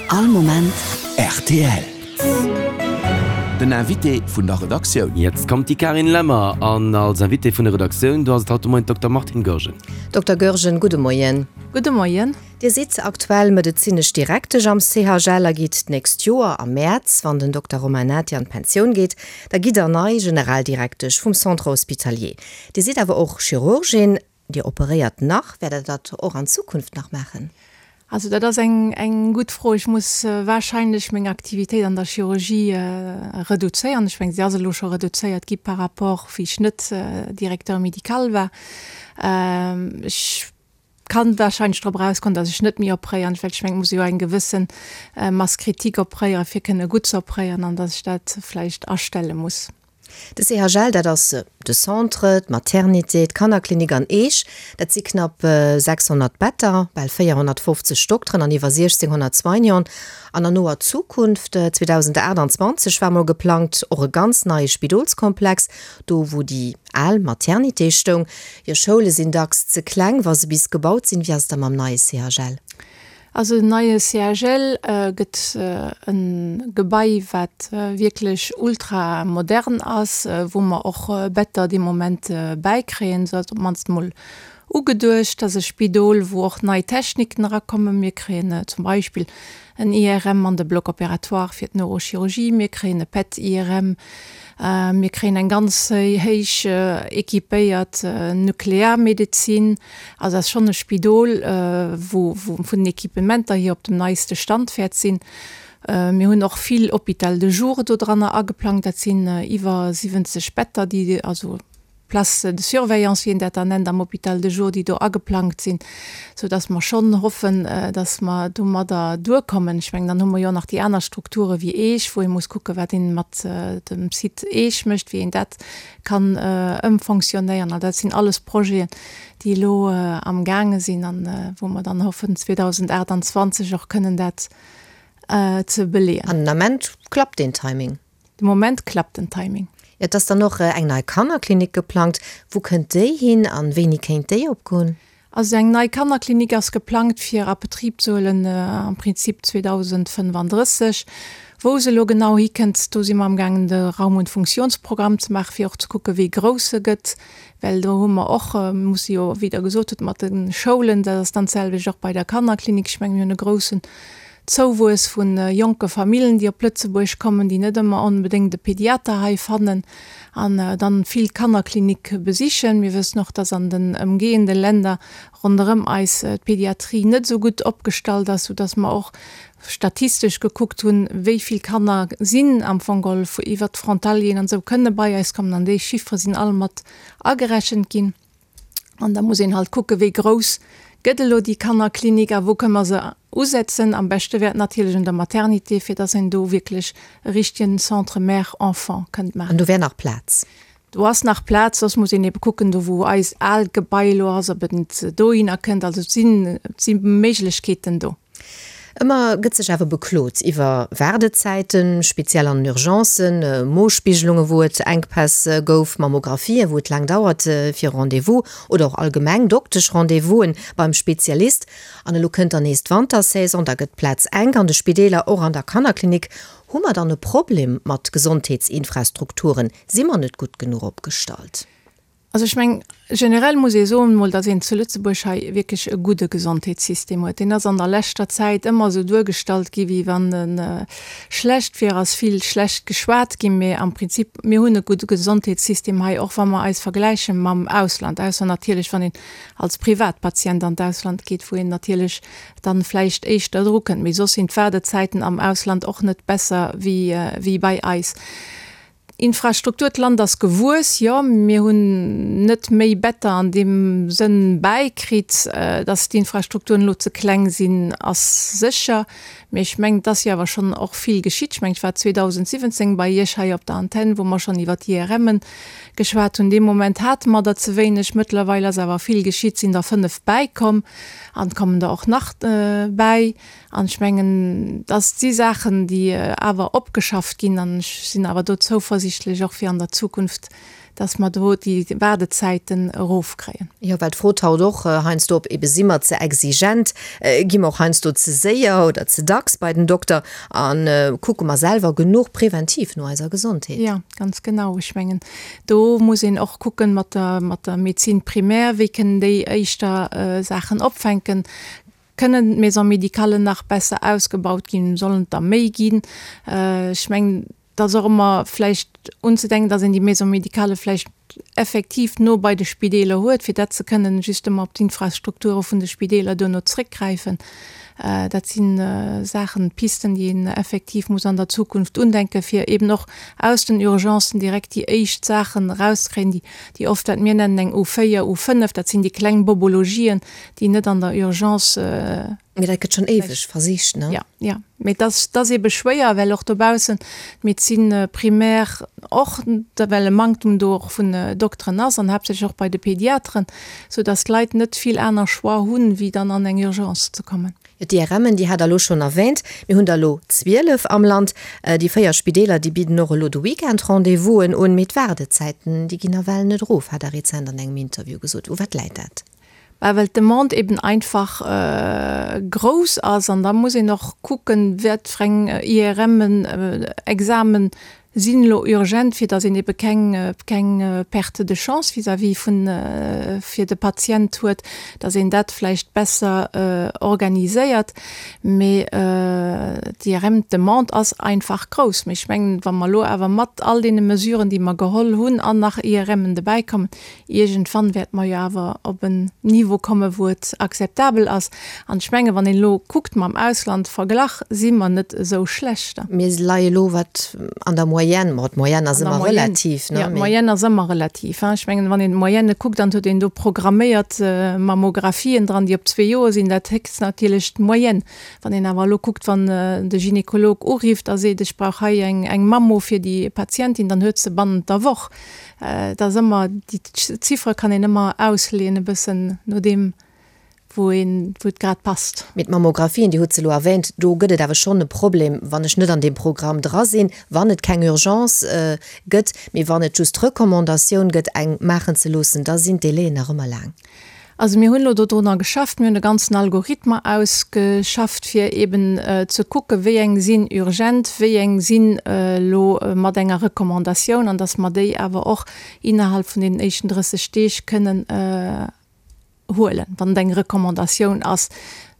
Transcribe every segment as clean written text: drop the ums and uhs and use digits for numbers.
All Moment rtl. Den Invité vun der Redaktioun. Jetzt kommt die Karin Lemmer an als Invitée vun der Redaktioun, do ass et haut de Moien d'Dokter Martine Goergen. Dokter Goergen, gudde Moien. Gudde Moien. Dir sidd aktuell medezinesch Direktesch am CHL a gitt d'nächst Joer am Mäerz, wann den Dokter Romain Nati an d'Pensioun geet, da gitt der nei Generaldirektesch vum Centre Hospitalier. Dir sidd awer och Chirurgin. Dir operéiert nach. Wäert Der dat och an Zukunft nach maachen? Also dat ass eng eng gutt Fro. Ech muss wahrscheinlech meng Aktivitéit an der Chirurgie reduzéieren. Ech mengen, se ass elo scho reduzéiert gi par rapport wéi ech net Directeur médical war. Ech kann wahrscheinlech drop erauskommen, datt ech net méi opréieren, well ech mengen, et muss ee jo eng gewësse Masse critique opréieren, fir kënne gutt ze opréieren, an datt ech dat vläicht astelle muss. De CHL, dat ass de Centre, d'Maternité, d'Kannerklinik an Eech. Dat si knapp 600 Better, bal 450 Dokteren an iwwer 1.600 Soignanten. An an noer Zukunft, 2028 war mol geplangt, och e ganz neie Spidolskomplex, do wou déi al Maternité stoung. Jo, Schoule sinn dacks ze kleng, wa se bis gebaut sinn. Wéi ass et da mam neie CHL? Also den neie CHL gëtt e Gebai, wat wierklech ultramodern ass, wou mer och Better dee Moment bäikréien, esou ass et op d'mannst emol ugeduecht. Dat ass e Spidol, wou och nei Techniken erakommen. Mir kréien zum Beispill en IRM an de Bloc opératoire fir d'Neurochirurgie, mir kréien e PET-IRM, mir kréien eng ganz héich équipéiert Nuklearmedezin. Also ass schonn e Spidol, wou vun den Equipementer hier op dem neiste Stand wäert sinn. Mir hunn och vill Hôpital de jour do dranner ageplangt. Dat sinn iwwer 70 Better, déi, also Places de surveillance, wéi een dat dann nennt am Hôpital de jour, déi do ageplangt sinn, soudass mer schonn hoffen, dass mer domadder duerkommen. Ech mengen, dann hu mer jo och nach déi aner Strukture wéi Eech, wou ee muss kucken, wat ee mat dem Site Eech mécht, wéi een dat kann ëmfonctionnéieren. An dat sinn alles Projeten, déi elo amgaange sinn an wou mer dann hoffen, 2028 och kënnen dat ze beleeën. An den Ament klappt deen Timing? De Moment klappt den Timing. Et ass dann och eng nei Kannerklinik geplangt. Wou kënnt déi hin an wéini kéint déi opgoen? Also eng nei Kannerklinik ass geplangt fir a Betrib ze huelen am Prinzip 2035. Wou se elo genau hikënnt, do si mer amgaangen de Raum und Funktionsprogramm ze maachen, fir och ze kucken, wéi grouss se gëtt, well do hu mer och, musse jo, wéi Der gesot hutt, mat de Schoulen, dat ass dann d'selwecht och bei der Kannerklinik. Ech mengen, mir hunn e groussen Zouwuess vu jonke Famillen, déi op Lëtzebuerg kommen, déi net ëmmer onbedéngt e Pediater hei fannen an dann vill d'Kannerklinik besichen. Mir wëssen och, dass an den ëmgehende Länder ronderëm eis d'Pediatrie net esou gutt opgestallt ass, soudass mer och statistesch gekuckt hunn, wéi vill Kanner sinn am Fong geholl iwwert d'Frontalieren an esou kënne bei eis kommen an déi Chiffere sinn all mat agerechent ginn. An da muss een halt kucken, wéi grouss gëtt elo déi Kannerklinik a wou kënne mer se usetzen. Am beschte wär et natierlech un der Maternité, fir dass een do wierklech e richtegen Centre mère-enfant kënnt maachen. An do wär nach Plaz? Do ass nach Plaz, soss muss een ebe kucken, do wou eist aalt Gebai elo ass, ob et net dohinner kënnt. Also et sinn, et si Méiglechkeeten do. Ëmmer gëtt sech awer beklot iwwer Waardezäiten, speziell an den Urgencen, Mospiggelunge wou et Enkpäss gouf, Mammographien, wou et laang dauert fir e Rendez-vous oder och allgemeng Doktesch-Rendez-vous'en beim Spezialist. An elo kënnt dann nees d'Wantersaison, da gëtt d'Plaz enk an de Spideeler, och an der Kannerklinik. Hu mer dann e Problem mat Gesondheetsinfrastrukturen? Si mer net gutt genuch opgestallt? Also ech mengen, generell muss ee soen emol, datt een zu Lëtzebuerg hei wierklech e gudde Gesondheetssystem huet. Deen ass an der leschter Zäit ëmmer esou duergestallt gi wéi wann e schlecht wier, ass vill schlecht geschwat ginn. Mee am Prinzip, mir hunn e gudde Gesondheetssystem hei, och wa mer eis vergläiche mam Ausland, ausser natierlech wann een als Privatpatient an d'Ausland geet, wou een natierlech dann vläicht éischter drukënnt. Mee soss sinn d'Waardezäiten am Ausland och net besser wéi bei eis. Infrastruktur, D'Land ass gewuess, jo. Mir hunn net méi Better an deem Sënn bäikritt. Datt d'Infrastrukturen elo ze kleng sinn, ass sécher. Mee ech mengen, et ass jo awer schonn och vill geschitt. Ech mengen, ech war 2017 bei Iech hei op der Antenn, wou mer schonn iwwer d'IRMen geschwat hunn. Dee Moment hate mer der ze wéineg. Mëttlerweil ass awer vill geschitt, sinn der 5 bäikomm an et kommen der och nach bäi. An ech mengen, dass si Saachen, déi awer opgeschafft ginn. An ech sinn awer do zouversichtlech, och fir an der Zukunft. Dass mer do déi Waardezäiten erofkréien. Jo, well d'Fro taucht och heiansdo op, ebe si mer ze exigent, gi mer och heiansdo ze séier oder ze dacks bei den Dokter a kucke mer selwer genuch preventiv no eiser Gesondheet? Jo, ganz genau. Ech mengen, do muss een och kucken mat der, mat der Médecine primaire, wéi kënnen déi éischter Saachen opfänken. Kënnen d'Maisons médicales nach besser ausgebaut ginn? Sollen et der méi ginn? Ech mengen, Et ass och ëmmer vläicht unzedenken, dass een déi Maison médicale vläicht effektiv no bei de Spideeler huet, fir dat ze kënnen justement op d'Infrastrukture vun de Spideeler duerno zréckgräifen. Dat si Saachen, Pisten, déi een effektiv muss an der Zukunft undenken, fir eben och aus den Urgencen direkt déi éischt Saachen erauszekréien, déi, déi oft, wat mir nennen eng U4, U5, dat sinn déi kleng Bobologien, déi net an der Urgence, Mee dat gëtt schonn éiweg versicht, ne? Jo, jo. Mee dat ass, dat ass eebe schwéier, well och dobaussen d'Médecine primaire och, well e Manktum do och vun Dokteren ass an haaptsächlech och bei de Pediateren, soudass d'Leit net vill aner Choix hunn, wéi dann an eng Urgence ze kommen. Jo, d'IRMen, déi hat Der elo schonn erwähnt. Mir hunn der elo 12 am Land. Déi 4 Spideeler, déi bidden och elo de Weekend Rendez-vousen un. Mee d'Waardezäiten, déi ginn nawell net erof, hat Der rezent an engem Interview gesot. U wat läit dat? Bah, well d'Demande eben einfach grouss ass an da muss een och kucken, wat fir eng IRMen, Examen sinn elo urgent, fir datt een ebe keng, keng Perte de chance vis-à-vis vun, fir de Patient huet, datt een dat vläicht besser organiséiert. Mee d'IRM, d'Demande ass einfach grouss. Mee ech mengen, wa mer elo awer mat all deene Mesuren, déi mer geholl hunn, an nach IRMen dobäikommen, Iergendwann wäerte mer jo awer op en Niveau kommen, wou et akzeptabel ass. An ech mengen, wann een elo kuckt mam Ausland verglach, si mer net esou schlecht. Mir leie elo wat an der Moyenne, ma d'Moyenne ass ëmmer relativ, ne? Jo, d'Moyenne ass ëmmer relativ. Ech mengen, wann een d'Moyenne kuckt an et huet een do programméiert Mammographien dran, déi op zwee Joer sinn, dat héchst natierlech d'Moyenne. Wann een awer elo kuckt, wann de Gynekolog urifft a seet, ech brauch hei eng Mammo fir déi Patientin, dann huet se bannent der Woch. Et ass ëmmer, déi Ziffere kann een ëmmer ausleeën e bëssen no deem, wou een, wou et grad passt. Mee d'Mammografien, Dir hutt se elo erwähnt, do gëtt et awer schonn e Problem, wann ech net an deem Programm dra sinn, wann et keng Urgence gëtt, mee wann et just d'Recommandatioun gëtt, eng maachen ze loossen, da sinn d'Délaien nach ëmmer laang. Also mir hunn elo dodrunner geschafft, mir hunn e ganzen Algorithme ausgeschafft, fir eben ze kucken, wéi eng sinn urgent, wéi eng sinn elo mat enger Recommandatioun, an datt mer déi awer och innerhalb vun deenen éischten 30 Deeg kënnen huelen, wann et eng Recommandatioun ass.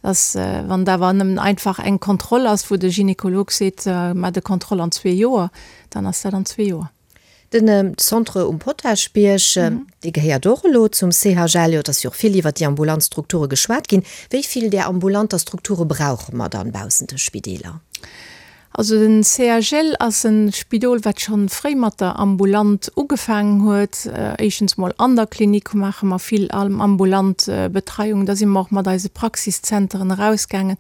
Dass, wann et awer nëmmen einfach eng Kontroll ass, wou de Gynekolog seet, maacht e Kontroll an zwee Joer, dann ass dat an zwee Joer. Den Centre um Potaschbierg, dee gehéiert och elo zum CHL. Jo, et ass jo och vill iwwert déi ambulant Strukture geschwat ginn. Wéi vill där ambulanter Strukture brauche mer dann baussent de Spideeler? Also den CHL ass e Spidol, wat scho fréi mat der ambulant ugefaangen huet. Éischtens mol an der Klinik maache mer vill ambulant Betreiung. Da si mer och mat eise Praxiszenteren erausgaangen,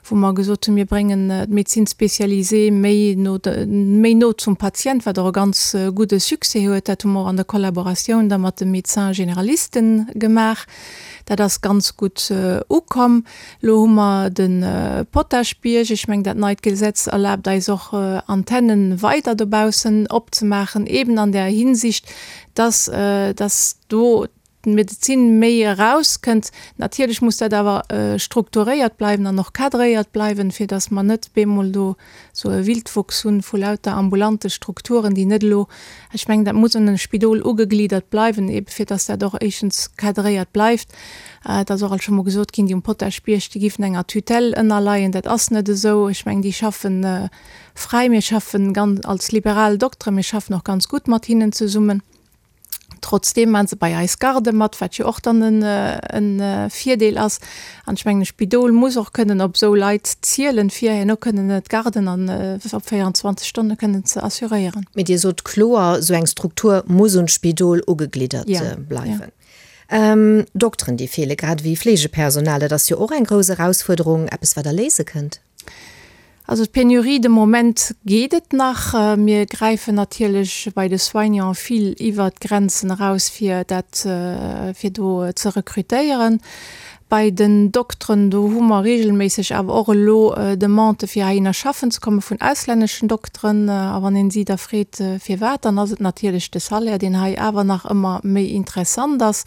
wou mer gesot hunn, mir bréngen d'Médecine spécialisée méi no, méi no zum Patient, wat och e ganz gudde Succès huet. Dat hu mer och an der Kollaboratioun da mat de Médecins généralisten gemaach. Dat ass ganz gutt ukomm. Elo hu mer de Potaschbierg. Ech mengen, dat neit Gesetz erlaabt eis och, Antennen weider dobaussen opzemaachen, eben an där Hinsicht, dass, dass do d'Medezin méi erauskënnt. Natierlech muss dat awer strukturéiert bleiwen an och cadréiert bleiwen, fir datt mer net bemol do esou e Wildwuchs hunn vu lauter ambulante Strukturen, déi net elo, ech mengen, dat muss un e Spidol ugegliddert bleiwen, ebe fir datt dat och éischtens cadréiert bleift. Et ass och alt scho mol gesot ginn, déi um Potaschbierg, déi giffen enger Tutelle ënnerleien. Dat ass net esou. Ech mengen, déi schaffen fräi. Mir schaffen ganz als liberal Dokteren, mir schaffen och ganz gutt mat hinnen zesummen. Trotzdeem maachen se bei eis Garde mat, wat jo och dann e Virdeel ass. An ech mengen, e Spidol muss och kënnen op esou Leit zielen, fir herno kënnen d'Garden an op 24 Stonne kënnen ze assuréieren. Mee Dir sot kloer, esou eng Struktur muss un d'Spidol ugegliddert bleiwen. Dokteren, déi feelen, grad ewéi Fleegepersonal, dat ass jo och eng grouss Erausfuerderung, eppes wat Der léise kënnt. Also d'Penurie, de Moment geet et nach. Mir gräifen natierlech bei de Soignants vill iwwert d'Grenzen eraus, fir dat, fir do ze rekrutéieren. Bei den Dokteren, do hu mer regelméisseg awer och elo Demandë fir heihinner schaffen ze komme vun auslänneschen Dokteren. A wann een si da freet firwat, dann ass et natierlech de Salaire, deen hei awer nach ëmmer méi interessant ass.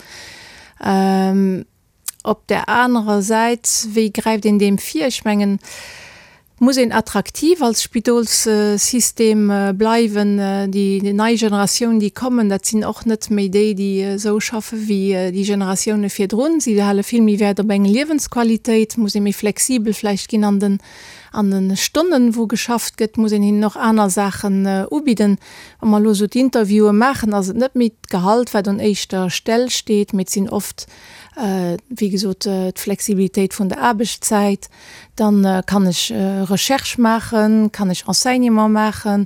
Op där anerer Säit, wéi gräift een deem vir? Ech mengen, et muss een attraktiv als Spidolssystem bleiwen. Déi nei Generatioun, déi kommen, dat sinn och net méi déi, déi esou schaffe wéi déi Generatioune virdrun. Si hale vill méi Wäert op eng Liewensqualitéit. Et muss ee méi flexibel vläicht ginn an den, an de Stonnen, wou geschafft gëtt. Et muss een hinnen och aner Saachen ubidden. Wa mer elo esou d'Interviewe maachen, ass et net méi d'Gehalt, wat un éischter Stell steet, mee et sinn oft wéi gesot, d'Flexibilitéit vun der Aarbechtszäit, dann kann ech Recherche maachen, kann ech Enseignement maachen,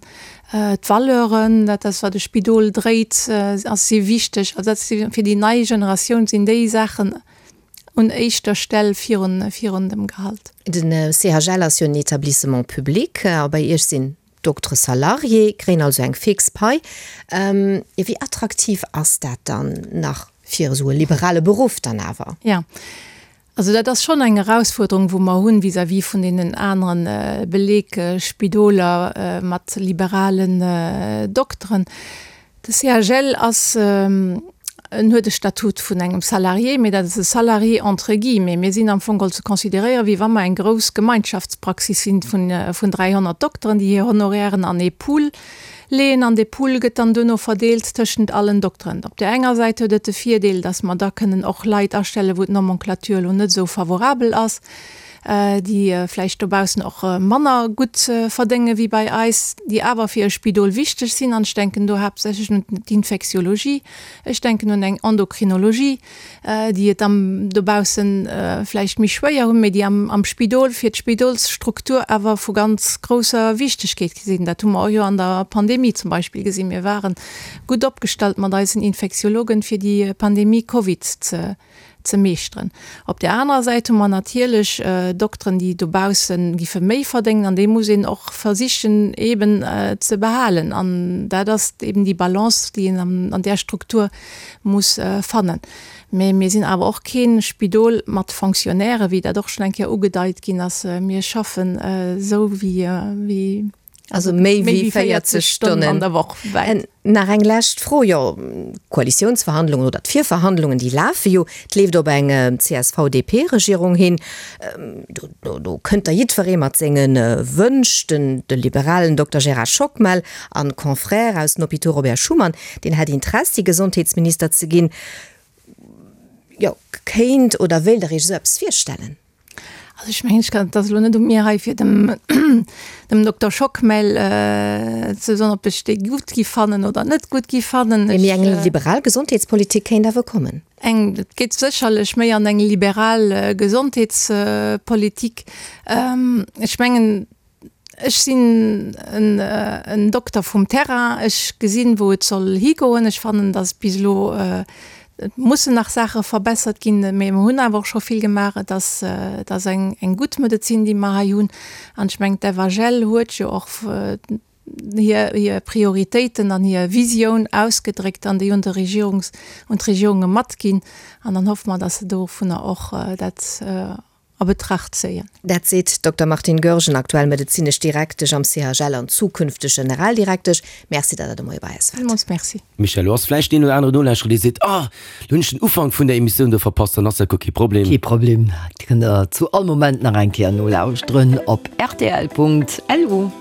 d'Valeuren, dat ass wat e Spidol dréit, ass si wichteg. Also dat si fir déi nei Generatioun sinn déi Saachen un éischter Stell virun virun dem Gehalt. Den CHL ass jo en Etablissement public a bei Iech sinn D'Doktere salarié kréien also eng fix Pai. Jo, wéi attraktiv ass dat dann nach fir esou e liberale Beruff dann awer? Jo, also dat ass schonn eng Erausfuerderung, wou mer hunn vis-à-vis vun deenen anere Belegspidoler mat liberalen Dokteren. De CHL ass, en huet e Statut vun engem Salarié, mee dat ass e Salarié entre guillemets. Mir sinn am Fong geholl ze consideréieren, wéi wa mer eng grouss Gemeinschaftspraxis sinn vun 300 Dokteren, déi hir Honorairen an ee Pool leeën an dee Pool gëtt dann duerno verdeelt tëschent allen Dokteren. Op där enger Säit huet et de Virdeel, datt mer da kënnen och Leit astellen, wou d'Nomenclature elo net esou favorabel ass. déi vläicht dobaussen och manner gutt verdénge wéi bei eis, déi awer fir e Spidol wichteg sinn. An ech denken do haaptsächlech un d'Infektiologie, ech denken un eng Endokrinologie, déi et am dobausse vläicht méi schwéier hunn, mee déi am Spidol fir d'Spidolsstruktur awer vu ganz grousser Wichtegkeet sinn. Dat hu mer och jo an der Pandemie zum Beispill gesinn. Mir ware gutt opgestallt mat eisen Infektiologen, fir déi Pandemie Covid ze ze meeschteren. Op där anerer Säit hu mer natierlech Dokteren, déi dobausse giffe méi verdéngen, an déi muss een och versichen eeben ze behalen. An dat ass eeben déi Balance, déi een an där Struktur muss fannen. Mä mir sinn awer och kee Spidol mat Fonctionnaires, wéi dat och schonn eng Kéier ugedeit ginn ass. Mir schaffen esou wéi. Also méi wéi 40 Stonnen an der Woch. Nach eng lescht Fro, jo, d'Koalitiounsverhandlungen oder d'Virverhandlungen, déi lafe jo, et leeft op eng CSV-DP-Regierung hin. Do, do kënnt da jiddweree mat senge Wënsch. Den, de liberalen Dokter Gérard Schockmel an Confrère aus den Hôpitaux Robert Schuman, deen hätt Interessi, Gesondheetsminister ze ginn. Jo, kéint oder wéilt Der Iech esou eppes virstellen? Also ech mengen, ech kann, et ass elo net u mir hei fir dem dem Dokter Schockmel ze soen, ob ech dee gutt gi fannen oder net gutt gi fannen. Mee eng liberal Gesondheetspolitik kéint awer kommen. Eng, et geet sécherlech méi an eng liberal Gesondheetspolitik. Ech mengen, Ech sinn en Dokter vum Terrain. Ech gesinn, wou et soll higoen. Ech fannen, datt bis elo, et mussen nach Saache verbessert ginn, mee mer hunn awer och scho vill gemaach. Et ass, et ass eng gutt Medezin, déi mer hei hunn. An ech mengen, d'FHL huet jo och hir Prioritéiten an hir Visioun ausgedréckt an déi un de Regierungs, un d'Regierunge matginn. An dann hoffe mer, datt se dovunner och dat a Betracht zéien. Dat seet d'Dokter Martine Goergen, aktuell medezinesch Direktesch am CHL an zukünfteg Generaldirektesch. Merci, datt Der de Moie bei eis waart. Villmools Merci. Michèle, lo ass vläicht deen oder anere Nolauschterer, dee seet, Ah, lo hunn ech den Ufank vun der Emissioun do verpasst. Dann ass dat guer kee Problem. Kee Problem, Dir kënnt der zu all Moment nach eng Kéier nolauschteren op rtl.lu.